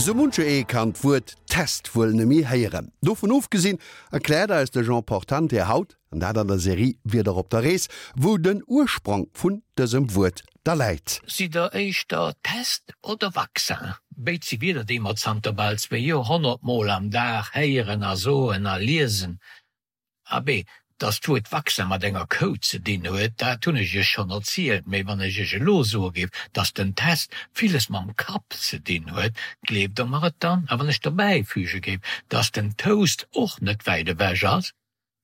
Sou muncher ee kann d'Wuert Test wuel nemme héieren. Dovun ofgesinn erkläert eis de Jean Portante haut, an dat an der Serie Wieder op der Rees, wou den Ursprong vun dësem Wuert da läit. Sidd der éischter Test oder Vaccin? Béid si Wierder, déi mer zanter bal zwéi Joerhonnert mol am Dag héieren a soen a liesen. Abee, dass d'Wuert Vaccin mat enger Kou ze dinn huet, dat hunn ech iech schonn erzielt. Mee wann ech iech elo soe géif, dass den Test villes mam Kapp ze dinn huet, gleeft der mer et dann? A wann ech dobäi füge géif, dass den Toast och net wäit ewech ass?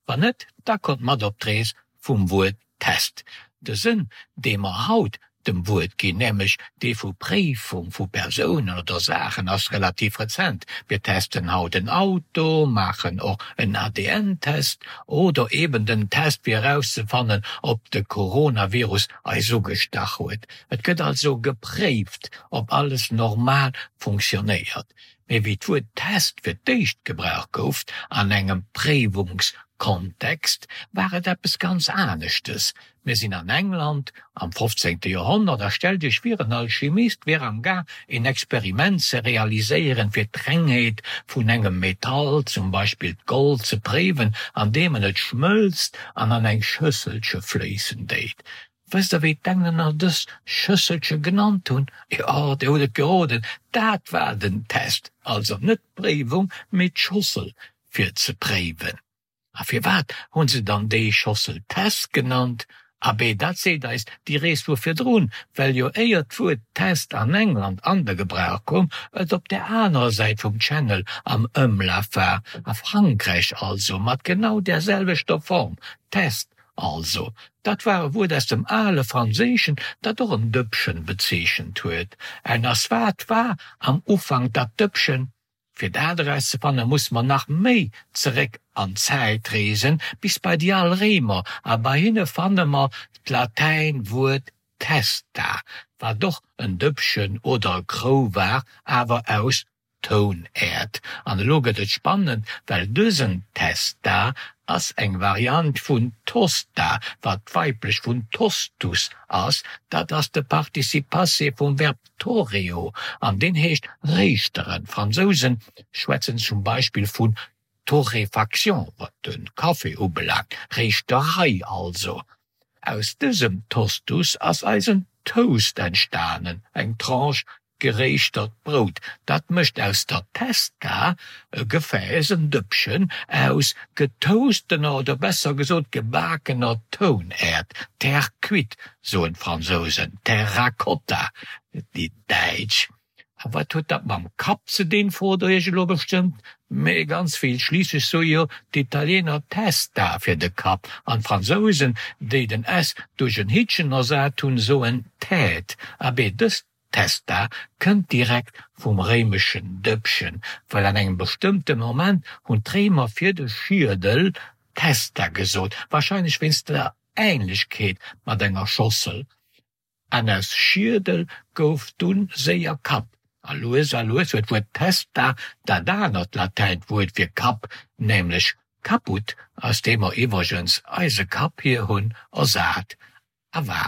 Wann net, da kommt mat op d'Rees vum Wuert Test. De Sënn, dee mer haut dem Wuert ginn, nämlech dee vu Préifung vu Persounen oder Saachen, ass relativ rezent. Mir testen haut en Auto, maachen och en ADN-Test oder eben den Test fir erauszefannen, ob de Coronavirus eis ugestach huet. Et gëtt also gepréift, ob alles normal funktionéiert. Mee wéi d'Wuert Test fir d'éischt gebraucht gouf, an engem Préiwungskontext, war et eppes ganz aneschtes. Mir sinn an England am fofzéngte Joerhonnert a stellt Iech vir, en Alchimist wier am Gaang een Experiment ze realiséieren, fir d'Rengheet vun engem Metall, zum Beispill d'Gold, ze préiwen, andeem en et schmëlzt an an eng Schësselche fléissen déit. Wësst der wéi d'Englänner dës Schësselche genannt hunn? Jo, dir hutt et geroden, dat war den Test, also net d'Préiwung, mee d'Schossel fir ze préiwen. A firwat hunn se dann déi Schossel Test genannt? Abee, dat seet eis déi Rees vu virdrun, well jo éier d'Wuert Test an England an de Gebrauch koum, et op där anerer Säit vum Channel am Ëmlaf war, a Frankräich also, mat genau där selwechter Form, Test. Also, dat war e Wuert aus dem ale Franséischen, dat och en Dëppchen bezeechent huet. En ass wat war am Ufank dat Dëppchen? Fir dat erauszefanne musse mer nach méi zeréck an d'Zäit reesen, bis bei déi al Réimer, a bei hinne fanne mer d'Latäin-Wuert testa, wat och en Dëppchen oder e Krou war, awer aus Tounäerd. An elo gëtt et spannend, well dësen Testa ass eng Variant vun Tosta, wat d'weiblech vun Tostus ass, dat ass de Participe passé vum Verb torreo an deen heescht réischteren. D'Fransousen schwätzen zum Beispill vun Torréfaction, wat de Café ubelaangt, Réischterei also. Aus dësem Tostus ass eisen Toast entstanen, eng Tranche geréischtert Brout. Dat mécht aus der Testa e Gefääss, en Dëppchen aus getoastener oder besser gesot gebakener Tounäerd, Terre cuite soen d'Fransousen, Terracotta déi Däitsch. A wat huet dat mam Kapp ze dinn, frot der iech elo bestëmmt. Mee ganz vill, schliisslech soe jo d'Italiener Testa fir de Kapp an d'Fransousen, déi den s duerch en Hittchen ersat hunn, soen Tête. Abee, dës Testa kënnt direkt vum réimeschen Dëppchen, well an engem bestëmmte Moment hunn d'Réimer fir de Schiedel Testa gesot, warscheinlech wéinst der Änlechkeet mat enger Schossel. An aus Schiedel gouf dunn séier Kapp, a lues a lues huet d'Wuert testa dat anert Latäin-Wuert fir Kapp, nämlech caput, aus deem mer iwwregens eise Kapp hier hunn, ersat a war.